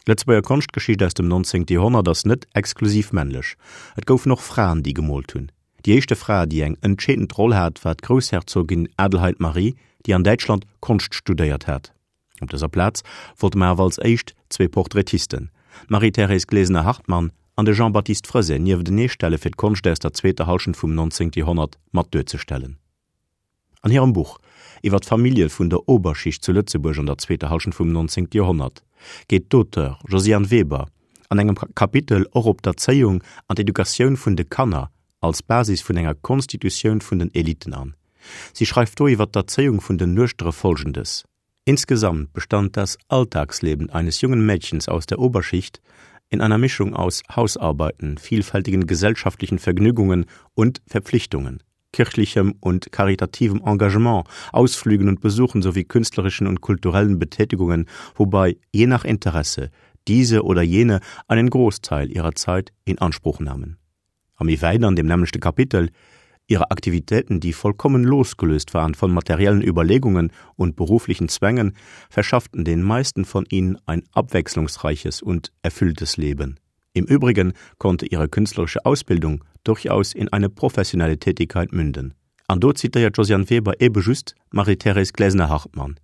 D'Lëtzebuerger Konschtgeschicht aus dem 19. Joerhonnert ass net exklusiv männlech. Et goufen och Fraen, déi gemoolt hunn. Déi éischte Fra, déi eng entscheedend Roll hat, war d'Groussherzogin Adelheid Marie, déi an Däitschland Konscht studéiert hat. Op dëser Plaz wollte mer awer als éischt zwee Portraitisten, d'Marie-Thérèse Glesener-Hartmann an de Jean-Baptiste Freset nieftenee stelle fir d'Konscht aus der zweeter Hallschent vum 19. Joerhonnert mat duerzestellen. An hirem Buch iwwer d'Famillje vun der Oberschicht zu Lëtzebuerg an der zweeter Hallschent vum 19. Joerhonnert geet d'Auteure Josiane Weber an engem Kapitel och op d'Erzéiung an d'Educatioun vun de Kanner als Basis vun enger Konstitutioun vun den Eliten an. Si schreift do iwwer d'Erzéiung vun den Nuechtere Folgendes, Insgesamt bestand das Alltagsleben eines jungen Mädchens aus der Oberschicht in einer Mischung aus Hausarbeiten, vielfältigen gesellschaftlichen Vergnügungen und Verpflichtungen, kirchlichem und karitativem Engagement, Ausflügen und Besuchen sowie künstlerischen und kulturellen Betätigungen, wobei je nach Interesse diese oder jene einen Großteil ihrer Zeit in Anspruch nahmen. A méi wäit an dem nämmlechte Kapitel, Ihre Aktivitäten, die vollkommen losgelöst waren von materiellen Überlegungen und beruflichen Zwängen, verschafften den meisten von ihnen ein abwechslungsreiches und erfülltes Leben. Im Übrigen konnte ihre künstlerische Ausbildung durchaus in eine professionelle Tätigkeit münden. An do zitéiert d'Josiane Weber ebe just d'Marie-Thérèse Glesener-Hartmann.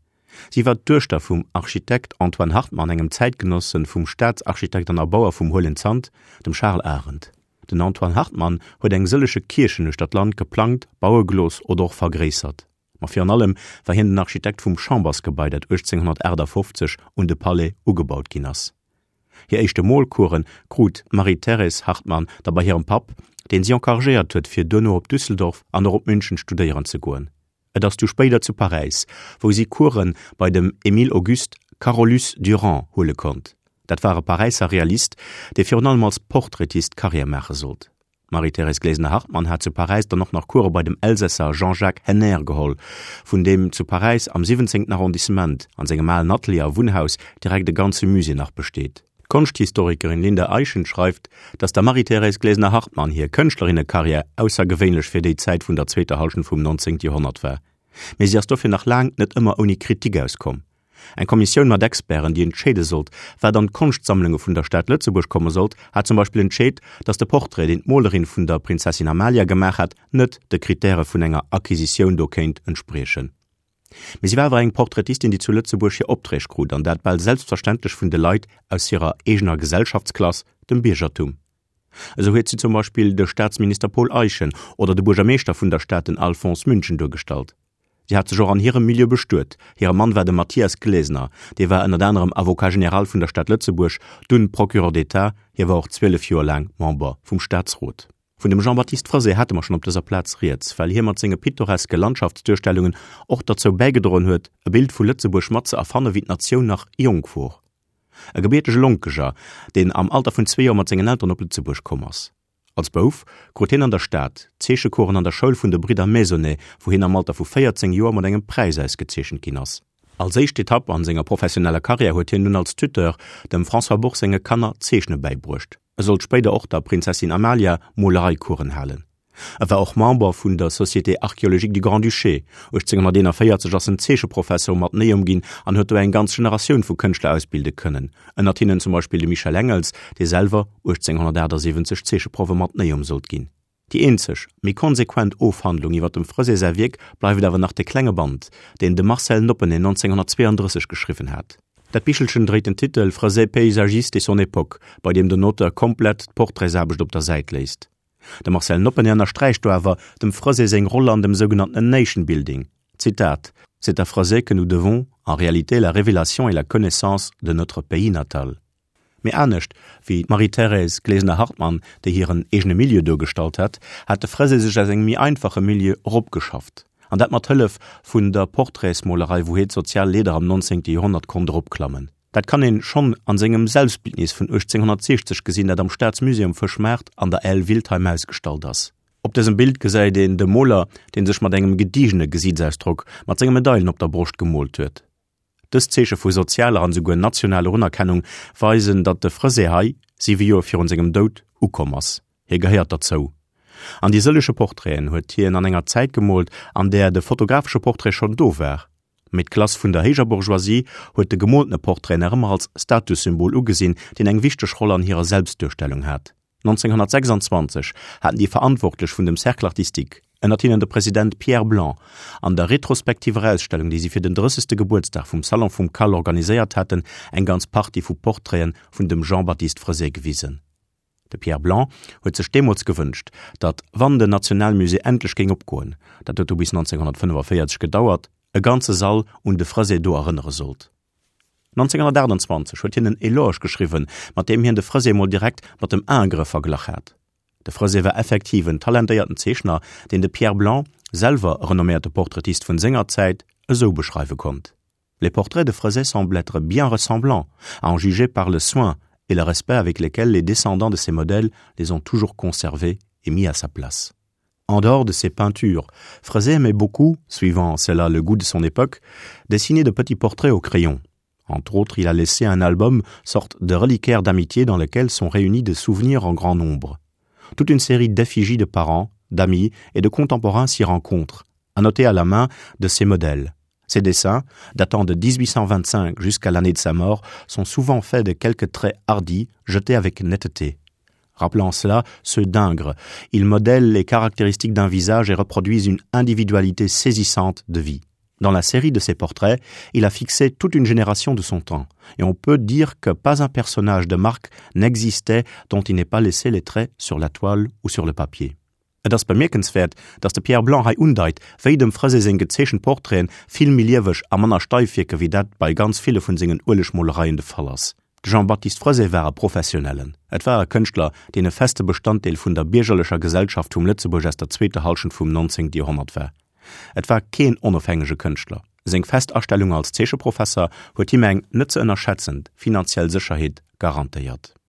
Si war d'Duechter vum Architekt Antoine Hartmann, engem Zäitgenosse vum Staatsarchitekt an Erbauer vum Huelen Zant, dem Charles Arendt. Den Antoine Hartmann huet eng sëllege Kierchen uechter d'Land geplangt, baue gelooss oder och vergréissert. Ma virun allem war hien den Architekt vum Chambersgebai, dat 1858 un de Palais ugebaut ginn ass. Hir éischte Molcoursen krut d'Marie-Thérèse Hartmann da bei hirem Papp, deen si encouragéiert huet, fir duerno op Düsseldorf an och op München studéieren ze goen. Et ass du spéider zu Paräis, wou si Course bei dem Émile Auguste Carolus-Duran huele konnt. Dat war e Paräisser Realist, dee virun allem als Portraitist Karriär maache sollt. D'Marie-Thérèse Glesener-Hartmann hat zu Paräis dann och nach Course bei dem Elsässer Jean-Jacques Henner geholl, vun deem zu Paräis am 17. Arrondissement an sengem alen Atelier a Wunnhaus direkt e ganze Musée nach besteet. D'Konschthistorikerin Linda Eyschen schreift, datt der Marie-Thérèse Glesener-Hartmann hir Kënschtlerinnekarriär aussergewéinlech fir déi Zäit vun der zweeter Hallschent vum 19. Joerhonnert war. Mee si ass dofir nach laang net ëmmer ouni Kritik auskomm. Eng Kommissioun mat Experten, déi entscheede sollt, wat an d'Konschtsammlunge vun der Stad Lëtzebuerg komme sollt, hat zum Beispill entscheet, datt de Portrait, deen d'Molerin vun der Prinzessin Amalia gemaach hat, net de Krittäre vun enger Acquisitioun do kéint entspriechen. Mee si war awer eng Portraitistin, déi zu Lëtzebuerg hir Opträg krut, an dat bal selbstverständlech vun de Leit aus hirer eegener Gesellschaftsklass, dem Biergertum. Esou huet si zum Beispill de Staatsminister Paul Eyschen oder de Buergermeeschter vun der Stad, den Alphonse München, duergestallt. Si hat sech och an hirem Milieu bestuet. Hire Mann war de Mathias Glesener, dee war ënnert anerem Avocat général vun der Stad Lëtzebuerg, dunn Procureur d'État, hie war och 12 Joer laang Member vum Staatsrot. Vun dem Jean-Baptiste Freset hate mer schonn op dëser Plaz rieds, well hie mat senge pittoreske Landschaftsduerstellungen och derzou bäigedroen huet, e Bild vu Lëtzebuerg mat ze erfanne wéi d'Natioun nach jonk wor. E gebiertege Lonkeger, deen am Alter vun zwee Joer mat sengen Elteren op Lëtzebuerg komm ass. Als Bouf krut hien an der Stad Zeechecoursen an der Schoul vun de Bridder Maisonnet, wou hien am Alter vu 14 Joer mat engem Präis ausgezeechent ginn ass. Als éischt Etapp an senger professioneller Karriär huet hien dunn als Tuteur dem François Bourg senge Kanner d'Zeechne bäibruecht. E sollt spéider och der Prinzessin Amalia Molereicoursen halen. E war och Member vun der Société archéologique du Grand-Duché. 1841 ass en Zeecheprofesser um Atheneum ginn an huet do eng ganz Generatioun vu Kënschtler ausbilde kënnen, ënnert hinnen zum Beispill de Michel Engels, dee selwer 1878 Zeecheproff um Atheneum sollt ginn. Déi eenzeg, méi konsequent Ofhandlung iwwer dem Freset säi Wierk bleift awer nach de klenge Band, deen de Marcel Noppeney 1932 geschriwwen hat. Dat Bichelchen dréit den Titel Freset paysagiste et son époque, bei deem den Auteur komplett d'Portraitsaarbecht op der Säit léisst. De Marcel Noppeney ënnersträicht do awer dem Freset seng Roll an dem sougenannten Nation Building, Zitat, C'est à Freset que nous devons en réalité la révélation et la connaissance de notre pays natal. Mee anescht wéi d'Marie-Thérèse Glesener-Hartmann, déi hiren eegene Milieu duergestallt hat, hat de Freset sech aus engem méi einfache Milieu eropgeschafft. An dat mat Hëllef vun der Portraitsmolerei, wou hie d'sozial Leeder am 19. Joerhonnert konnt eropklammen. Dat kann een schonn an sengem Selbstbildnis vun 1860 gesinn, dat am Staatsmusée um Fëschmaart an der Aile Wiltheim ausgestallt ass. Op dësem Bild gesäit een de Moler, dee sech mat engem gediegene Gesiitsausdrock mat senge Medailen op der Broscht gemoolt huet. Dës Zeeche vu sozialer an esouguer nationaler Unerkennung weisen, datt de Freset hei, siwe Joer virun sengem Doud, ukomm ass. Hie gehéiert derzou. An déi sëllege Portraiten huet hien an enger Zäit gemoolt, an där de fotografesche Portrait schonn do war. Mee d'Klass vun der héijer Bourgeoisie huet de gemooltene Portrait nach ëmmer als Statussymbol ugesinn, deen eng wichteg Roll an hirer Selbstduerstellung hat. 1926 haten déi Verantwortlech vun dem Cercle artistique, ënnert hinnen de President Pierre Blanc, an der retrospektiver Ausstellung, déi si fir den drëssegste Gebuertsdag vum Salon vum Cal organiséiert haten, eng ganz Partie vu Portraiten vun dem Jean-Baptiste Freset gewisen. De Pierre Blanc huet sech deemools gewënscht, datt, wann den Nationalmusée endlech géing opgoen, dat huet du bis 1945 gedauert, e ganze Sall un de Freset do erënnere sollt. 1928 huet hien en Eloge geschriwwen, mat deem hien de Freset mol direkt mat dem Ingres verglach hat. De Freset war effektiv en talentéierten Zeechner, deen de Pierre Blanc, selwer e renomméierte Portraitist vun senger Zäit, esou beschreiwe konnt, Les portraits de Freset semblent être bien ressemblants, à en juger par le soin et le respect avec lesquels les descendants de ces modèles les ont toujours conservés et mis à sa place. En dehors de ses peintures, Freset aimait beaucoup, suivant cela le goût de son époque, dessiner de petits portraits au crayon. Entre autres, il a laissé un album, sorte de reliquaire d'amitié dans lequel sont réunis des souvenirs en grand nombre. Toute une série d'effigies de parents, d'amis et de contemporains s'y rencontrent, annotés à la main de ses modèles. Ses dessins, datant de 1825 jusqu'à l'année de sa mort, sont souvent faits de quelques traits hardis jetés avec netteté. Rappelant cela, ceux d'Ingres, ils modèlent les caractéristiques d'un visage et reproduisent une individualité saisissante de vie. Dans la série de ses portraits, il a fixé toute une génération de son temps, et on peut dire que pas un personnage de marque n'existait dont il n'ait pas laissé les traits sur la toile ou sur le papier. Et ass bemierkenswäert, datt de Pierre Blanc hei undeit, wéi dem Freset seng gezeechent Portraiten vill méi lieweg a manner steif wierke wéi dat bei ganz ville vun sengen Uelegmolereien de Fall ass. De Jean-Baptiste Freset war e Professionellen. Et war e Kënschtler, deen e feste Bestanddeel vun der biergerlecher Gesellschaft vum Lëtzebuerg aus der zweeter Hallschent vum 19. Joerhonnert war. Et war keen onofhängege Kënschtler. Seng fest Astellung als Zeecheprofesser huet him eng net ze ënnerschätzend finanziell Sécherheet garantéiert.